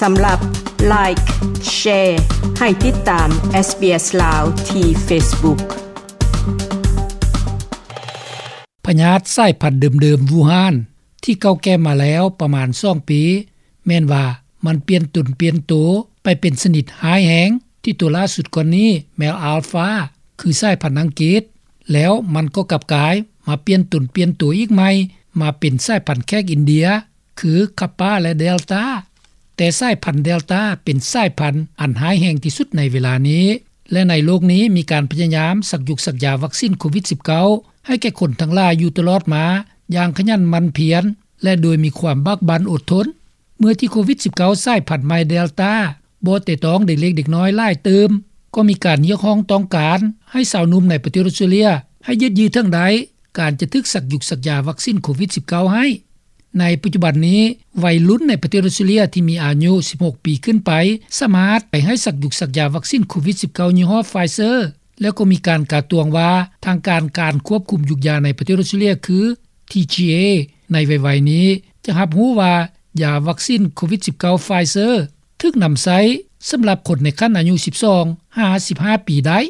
ສຳລັບ Like, Share ໃຫ້ຕິດຕາມ SBS ລາວ ທີ່ Facebook. ພະຍາດສາຍພັນເດີມໆ ວູຮານ ທີ່ເກົ່າແກ່ມາແລ້ວປະມານສອງປີ ແມ່ນວ່າມັນປ່ຽນຕົນປ່ຽນໂຕໄປເປັນຊະນິດຮ້າຍແຮງ ທີ່ໂຕລ່າສຸດກ່ອນນີ້ແມ່ນ Alpha ຄືສາຍພັນອັງກິດ ແລ້ວມັນກໍກັບກາຍມາປ່ຽນຕົນປ່ຽນໂຕອີກໃໝ່ ມາເປັນສາຍພັນແຂກອິນເດຍ ຄື Kappa ແລະ Delta. ແຕ່ສາຍພັນ Delta ເປັນສາຍພັນອັນຮ້າຍແຮງທີ່ສຸດໃນເວລານີ້ ແລະ ໃນໂລກນີ້ມີການພະຍາຍາມສັກຍຸກສັກຢາວັກຊິນໂຄວິດສິບເກົ້າ ໃຫ້ແກ່ຄົນທັງຫຼາຍຢູ່ຕະຫຼອດມາຢ່າງຂະຫຍັນໝັ່ນພຽນ ແລະ ໂດຍມີຄວາມບາກບັ່ນອົດທົນ. ເມື່ອທີ່ໂຄວິດສິບເກົ້າ ສາຍພັນໃໝ່ Delta ບໍ່ແຕະຕ້ອງເດັກເລັກເດັກນ້ອຍຫຼາຍຕື່ມ ກໍມີການຮຽກຮ້ອງຕ້ອງການໃຫ້ຊາວໜຸ່ມໃນປະເທດອອສເຕຣເລັຍ ໃຫ້ຍືດເຍື້ອເຖິງໄດ້ ການຈະຖືກສັກຍຸກສັກຢາວັກຊິນໂຄວິດສິບເກົ້າໃຫ້. ໃນປັດຈຸບັນນີ້ ໄວລຸ້ນໃນປະເທດອອສເຕຣເລັຍທີ່ມີອາຍຸສິບຫົກປີຂຶ້ນໄປ ສາມາດໄປໃຫ້ສັກຍຸກສັກຢາວັກຊິນໂຄວິດສິບເກົ້າຍີ່ຫໍ້ Pfizer ແລ້ວກໍມີການກາຕວງວ່າ ທາງການ ການຄວບຄຸມຢຸກຢາໃນປະເທດອອສເຕຣເລັຍຄື TGA ໃນໄວໆນີ້ ຈະຮັບຮູ້ວ່າຢາວັກຊິນໂຄວິດສິບເກົ້າ Pfizer ຖືກນຳໃຊ້ສຳລັບຄົນໃນຂັ້ນອາຍຸສິບສອງຫາສິບຫ້າປີໄດ້.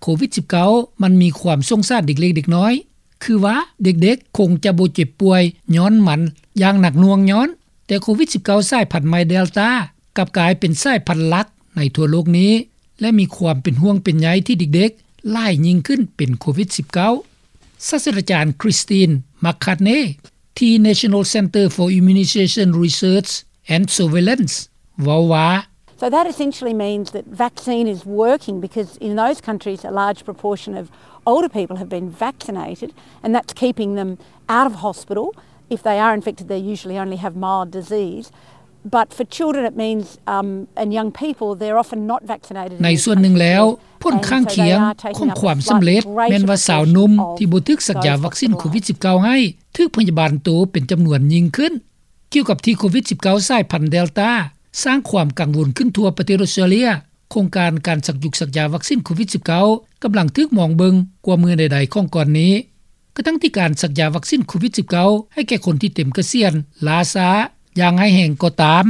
ໂຄວິດສິບເກົ້າ ມັນມີຄວາມສົງສານເດັກເລັກເດັກນ້ອຍ ຄືວ່າເດັກໆຄົງຈະບໍ່ເຈັບປ່ວຍຍ້ອນມັນຢ່າງໜັກໜ່ວງຍ້ອນ ແຕ່ໂຄວິດສິບເກົ້າ ສາຍພັນໃໝ່ Delta ກັບກາຍເປັນສາຍພັນຫຼັກໃນທົ່ວໂລກນີ້ ແລະ ມີຄວາມເປັນຫ່ວງເປັນໃຍທີ່ເດັກໆຫຼາຍຍິ່ງຂຶ້ນເປັນໂຄວິດສິບເກົ້າ. ສາດສະດາຈານ Christine McCartney ທີ່ National Centre for Immunisation Research and Surveillance ເວົ້າວ່າ So that essentially means that vaccine is working because in those countries a large proportion of older people have been vaccinated and that's keeping them out of hospital. If they are infected, they usually only have mild disease. But for children it means, um, and young people, they're often not vaccinated in these countries yet. ໃນສ່ວນໜຶ່ງແລ້ວ ຜົນຂ້າງຄຽງຂອງຄວາມສຳເລັດແມ່ນວ່າຊາວໜຸ່ມທີ່ບໍ່ຖືກສັກຢາວັກຊິນໂຄວິດສິບເກົ້າໃຫ້ ຖືກພະຍາບານໂຕເປັນຈຳນວນຍິ່ງຂຶ້ນ. ກ່ຽວກັບທີ່ໂຄວິດສິບເກົ້າ ສາຍພັນ Delta ສ້າງຄວາມກັງວົນຂຶ້ນທົ່ວປະເທດອອສເຕຣເລັຍ ໂຄງການການສັກຍຸກສັກຢາວັກຊິນໂຄວິດສິບເກົ້າ ກຳລັງຖືກມອງເບິ່ງກວ່າເມື່ອໃດໆຂອງກ່ອນນີ້. ກະທັ່ງທີ່ການສັກຢາວັກຊິນໂຄວິດສິບເກົ້າໃຫ້ແກ່ຄົນທີ່ເຕັມກະສຽນລ້າຊ້າຢ່າງຮ້າຍແຮງກໍຕາມ,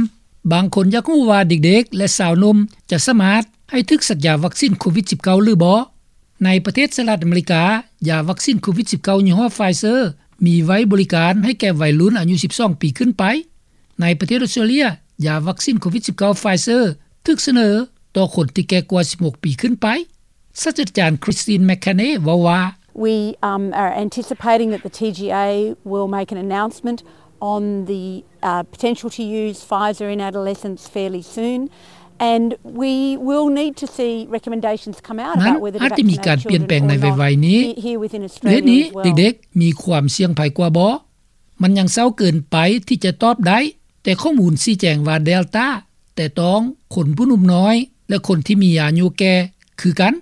ບາງຄົນຢາກຮູ້ວ່າເດັກໆ ແລະ ຊາວໜຸ່ມຈະສາມາດໃຫ້ຖືກສັກຢາວັກຊິນໂຄວິດສິບເກົ້າຫຼືບໍ່. ໃນປະເທດສະຫະລັດອາເມລິກາ, ຢາວັກຊິນໂຄວິດສິບເກົ້າຍີ່ຫໍ້ Pfizer ມີໄວ້ບໍລິການໃຫ້ແກ່ໄວລຸ້ນອາຍຸສິບສອງປີຂຶ້ນໄປ. ໃນປະເທດອອສເຕຣເລັຍ, ຢາວັກຊິນໂຄວິດສິບເກົ້າ Pfizer ຖືກສະເໜີຕໍ່ຄົນທີ່ແກ່ກວ່າສິບຫົກປີຂຶ້ນໄປ. ສາດສະດາຈານ Christine McCanney ເວົ້າວ່າ We, um, are anticipating that the TGA will make an announcement on the, uh, potential to use Pfizer in adolescents fairly soon, and we will need to see recommendations come out about whether to vaccinate children or not here within Australia as well. ນັ້ນອາດຈະມີການປ່ຽນແປງໃນໄວໆນີ້. ເດດນີ້ ເດັກໆມີຄວາມສ່ຽງໄພກວ່າບໍ່? ມັນຍັງເຊົ້າເກີນໄປທີ່ຈະຕອບໄດ້, ແຕ່ຂໍ້ມູນຊີ້ແຈງວ່າ Delta ແຕະຕ້ອງຄົນຜູ້ໜຸ່ມນ້ອຍ ແລະ ຄົນທີ່ມີອາຍຸແກ່ຄືກັນ.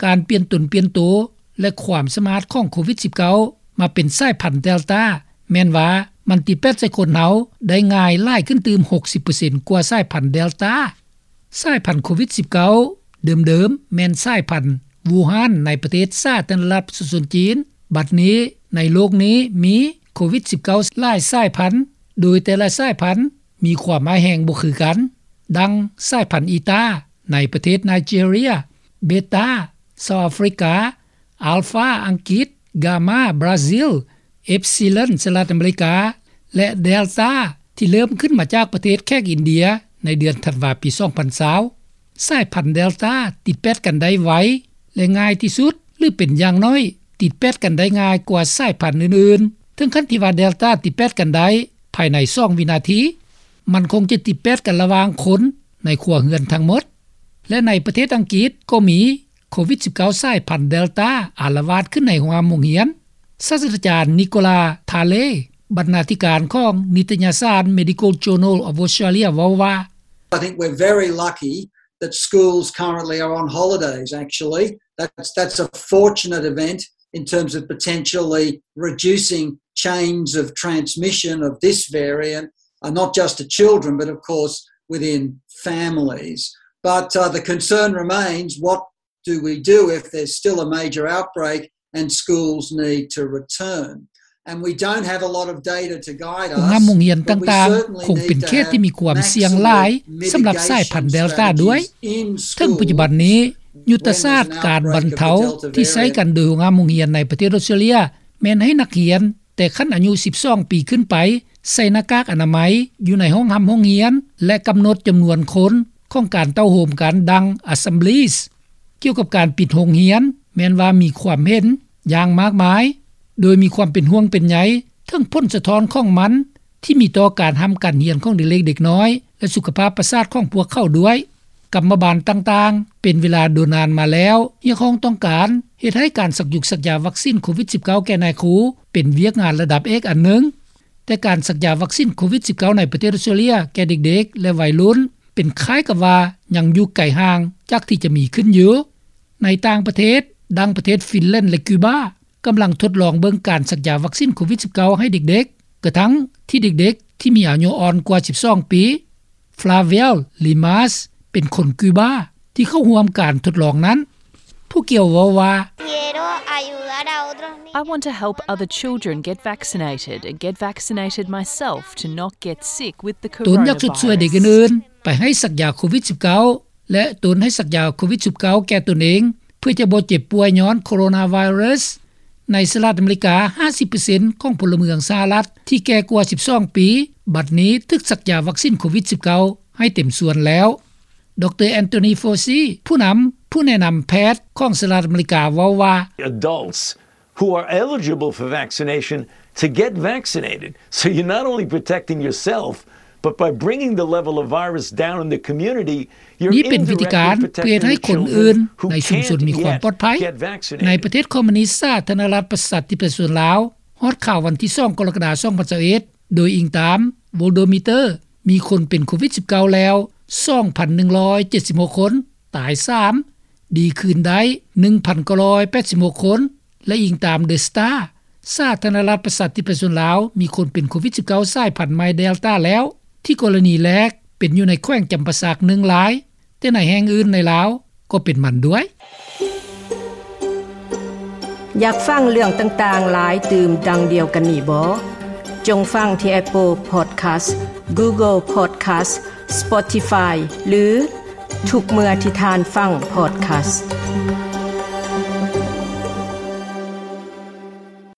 ການປ່ຽນຕົນປ່ຽນໂຕ ແລະ ຄວາມສາມາດຂອງໂຄວິດສິບເກົ້າມາເປັນສາຍພັນ Delta ແມ່ນວ່າມັນຕິດແປດໃສ່ຄົນເຮົາໄດ້ງ່າຍຫຼາຍຂຶ້ນຕື່ມຫົກສິບເປີເຊັນກວ່າສາຍພັນ Delta. ສາຍພັນໂຄວິດສິບເກົ້າເດີມໆ ແມ່ນສາຍພັນວູຮານໃນປະເທດສາທາລະນະລັດປະຊາຊົນຈີນ. ບັດນີ້ໃນໂລກນີ້ມີໂຄວິດສິບເກົ້າຫຼາຍສາຍພັນ, ໂດຍແຕ່ລະສາຍພັນມີຄວາມຮ້າຍແຮງບໍ່ຄືກັນ, ດັ່ງສາຍພັນອີຕາໃນປະເທດໄນເຈເຣຍ, ເບຕາ ເຊົາອາຟຣິກາ, ອາລຟາ ອັງກິດ, ກາມາ ບຣາຊິລ, ເອັບຊີລອນ ສະຫະລັດອາເມລິກາ ແລະ ເດລຕາ ທີ່ເລີ່ມຂຶ້ນມາຈາກປະເທດແຂກອິນເດຍໃນເດືອນທັນວາປີສອງພັນຊາວ. ສາຍພັນເດລຕາຕິດແປດກັນໄດ້ໄວ ແລະ ງ່າຍທີ່ສຸດ ຫຼື ເປັນຢ່າງໜ້ອຍ ຕິດແປດກັນໄດ້ງ່າຍກວ່າສາຍພັນອື່ນໆ ເຖິງຂັ້ນທີ່ວ່າເດລຕາຕິດແປດກັນໄດ້ພາຍໃນສອງວິນາທີ. ມັນຄົງຈະຕິດແປດກັນລະຫວ່າງຄົນໃນຄົວເຮືອນທັງໝົດ. ແລະ ໃນປະເທດອັງກິດກໍມີ ໂຄວິດສິບເກົ້າ ສາຍພັນເດລຕາອາລະວາດຂຶ້ນໃນໂຮງຮຽນ. ສາດສະດາຈານ ນິໂກລາ ທາເລ ບັນນາທິການຂອງນິຕະຍະສານ Medical Journal of Australia ເວົ້າວ່າ I think we're very lucky that schools currently are on holidays, actually. That's, that's a fortunate event in terms of potentially reducing chains of transmission of this variant, uh, not just to children, but of course within families. But, uh, the concern remains, what do we do if there's still a major outbreak and schools need to return? ໂຮງຮາມໂຮງຮຽນຕ່າງໆ ຄົງເປັນເຂດທີ່ມີຄວາມສ່ຽງຫຼາຍສຳລັບສາຍພັນເດລຕາດ້ວຍ. ເຖິງປັດຈຸບັນນີ້ ຍຸດທະສາດການບັນເທົາທີ່ໃຊ້ກັນໂດຍໂຮງຮາມໂຮງຮຽນໃນປະເທດອອສເຕຣເລັຽ ແມ່ນໃຫ້ນັກຮຽນແຕ່ຂັ້ນອາຍຸສິບສອງປີຂຶ້ນໄປ ໃສ່ໜ້າກາກອະນາໄມຢູ່ໃນຫ້ອງຮາມໂຮງຮຽນ ແລະ ກຳນົດຈຳນວນຄົນຂອງການເຕົ້າໂຮມກັນ ດັ່ງ Assemblies. ກ່ຽວກັບການປິດໂຮງຮຽນ ແມ່ນວ່າມີຄວາມເຫັນຢ່າງມາກມາຍ ໂດຍມີຄວາມເປັນຫ່ວງເປັນໃຍເຖິງຜົນສະທ້ອນຂອງມັນ ທີ່ມີຕໍ່ການຮ່ຳການຮຽນຂອງເດັກໆ ເດັກນ້ອຍ ແລະ ສຸຂະພາບປະສາດຂອງພວກເຂົາດ້ວຍ. ກຳມະບານຕ່າງໆ ເປັນເວລາດົນນານມາແລ້ວ ຮຽກຮ້ອງຕ້ອງການເຮັດໃຫ້ການສັກຢຸກສັກຢາວັກຊິນໂຄວິດສິບເກົ້າ ແກ່ນາຍຄູ ເປັນວຽກງານລະດັບເອກອັນໜຶ່ງ. ແຕ່ການສັກຢາວັກຊິນໂຄວິດສິບເກົ້າ ໃນປະເທດອອສເຕຣເລັຽແກ່ເດັກໆ ແລະ ໄວລຸ້ນ ເປັນຄ້າຍກັບວ່າຍັງຢູ່ໄກຫ່າງຈາກທີ່ຈະມີຂຶ້ນຢູ່. ໃນຕ່າງປະເທດ ດັ່ງປະເທດຟິນແລນ ແລະ ຄິວບາ ກຳລັງທົດລອງເບິ່ງການສັກຢາວັກຊິນໂຄວິດສິບເກົ້າ ໃຫ້ເດັກໆ ກະທັ່ງທີ່ເດັກໆ ທີ່ມີອາຍຸອ່ອນກວ່າສິບສອງປີ. Flavial Limas ເປັນຄົນຄິວບາທີ່ເຂົ້າຮ່ວມການທົດລອງນັ້ນ. ຜູ້ກ່ຽວເວົ້າວ່າ Quiero ayudar a otros niños. I want to help other children get vaccinated and get vaccinated myself to not get sick with the coronavirus. ຕົນຢາກຊົດຊ່ວຍເດັກອື່ນໆ ໄປໃຫ້ສັກຢາໂຄວິດສິບເກົ້າ ແລະ ຕົນໃຫ້ສັກຢາໂຄວິດສິບເກົ້າ ແກ່ຕົນເອງ ເພື່ອຈະບໍ່ເຈັບປ່ວຍຍ້ອນໂຄໂຣນາໄວຣັສ. ໃນສະຫະລັດອາເມລິກາ ຫ້າສິບເປີເຊັນຂອງພົນລະເມືອງສະຫະລັດທີ່ແກ່ກວ່າສິບສອງປີ ບັດນີ້ຖືກສັກຢາວັກຊິນໂຄວິດສິບເກົ້າ ໃຫ້ເຕັມສ່ວນແລ້ວ. ດຣ Anthony Fauci ຜູ້ນຳ ຜູ້ແນະນຳແພດຂອງສະຫະລັດອາເມລິກາເວົ້າວ່າ Adults who are eligible for vaccination to get vaccinated. So you're not only protecting yourself, but by bringing the level of virus down in the community, you're ນີ້ເປັນວິທີການເພື່ອເຮັດໃຫ້ຄົນອື່ນໃນຊຸມຊົນມີຄວາມປອດໄພ. ໃນປະເທດຄອມມູນິດສາທາລະນະລັດປະຊາທິປະໄຕສ່ວນລາວ ຮອດຄາວວັນທີສອງ ກໍລະກະດາ ສອງພັນຊາວເອັດ ໂດຍອີງຕາມ Worldometer ມີຄົນເປັນໂຄວິດສິບເກົ້າ ແລ້ວ ສອງພັນໜຶ່ງຮ້ອຍເຈັດສິບຫົກຄົນ, ຕາຍສາມ, ດີຄືນໄດ້ ໜຶ່ງພັນເກົ້າຮ້ອຍແປດສິບຫົກຄົນ ແລະ ອີງຕາມ The Star ສາທາລະນະລັດປະຊາທິປະໄຕສ່ວນລາວ ມີຄົນເປັນໂຄວິດສິບເກົ້າ ສາຍພັນໃໝ່ Delta ແລ້ວ ທີ່ກໍລະນີແລກເປັນຢູ່ໃນແຂວງຈຳປາສັກ ໜຶ່ງລາຍ, ແຕ່ໃນແຫ່ງອື່ນໃນລາວກໍເປັນມັນດ້ວຍ. ຢາກຟັງເລື່ອງຕ່າງໆຫຼາຍຕື່ມດັ່ງດຽວກັນນີ້ບໍ? ຈົ່ງຟັງທີ່ Apple Podcast, Google Podcast, Spotify ຫຼື ທຸກເມື່ອທີ່ທ່ານຟັງ Podcast.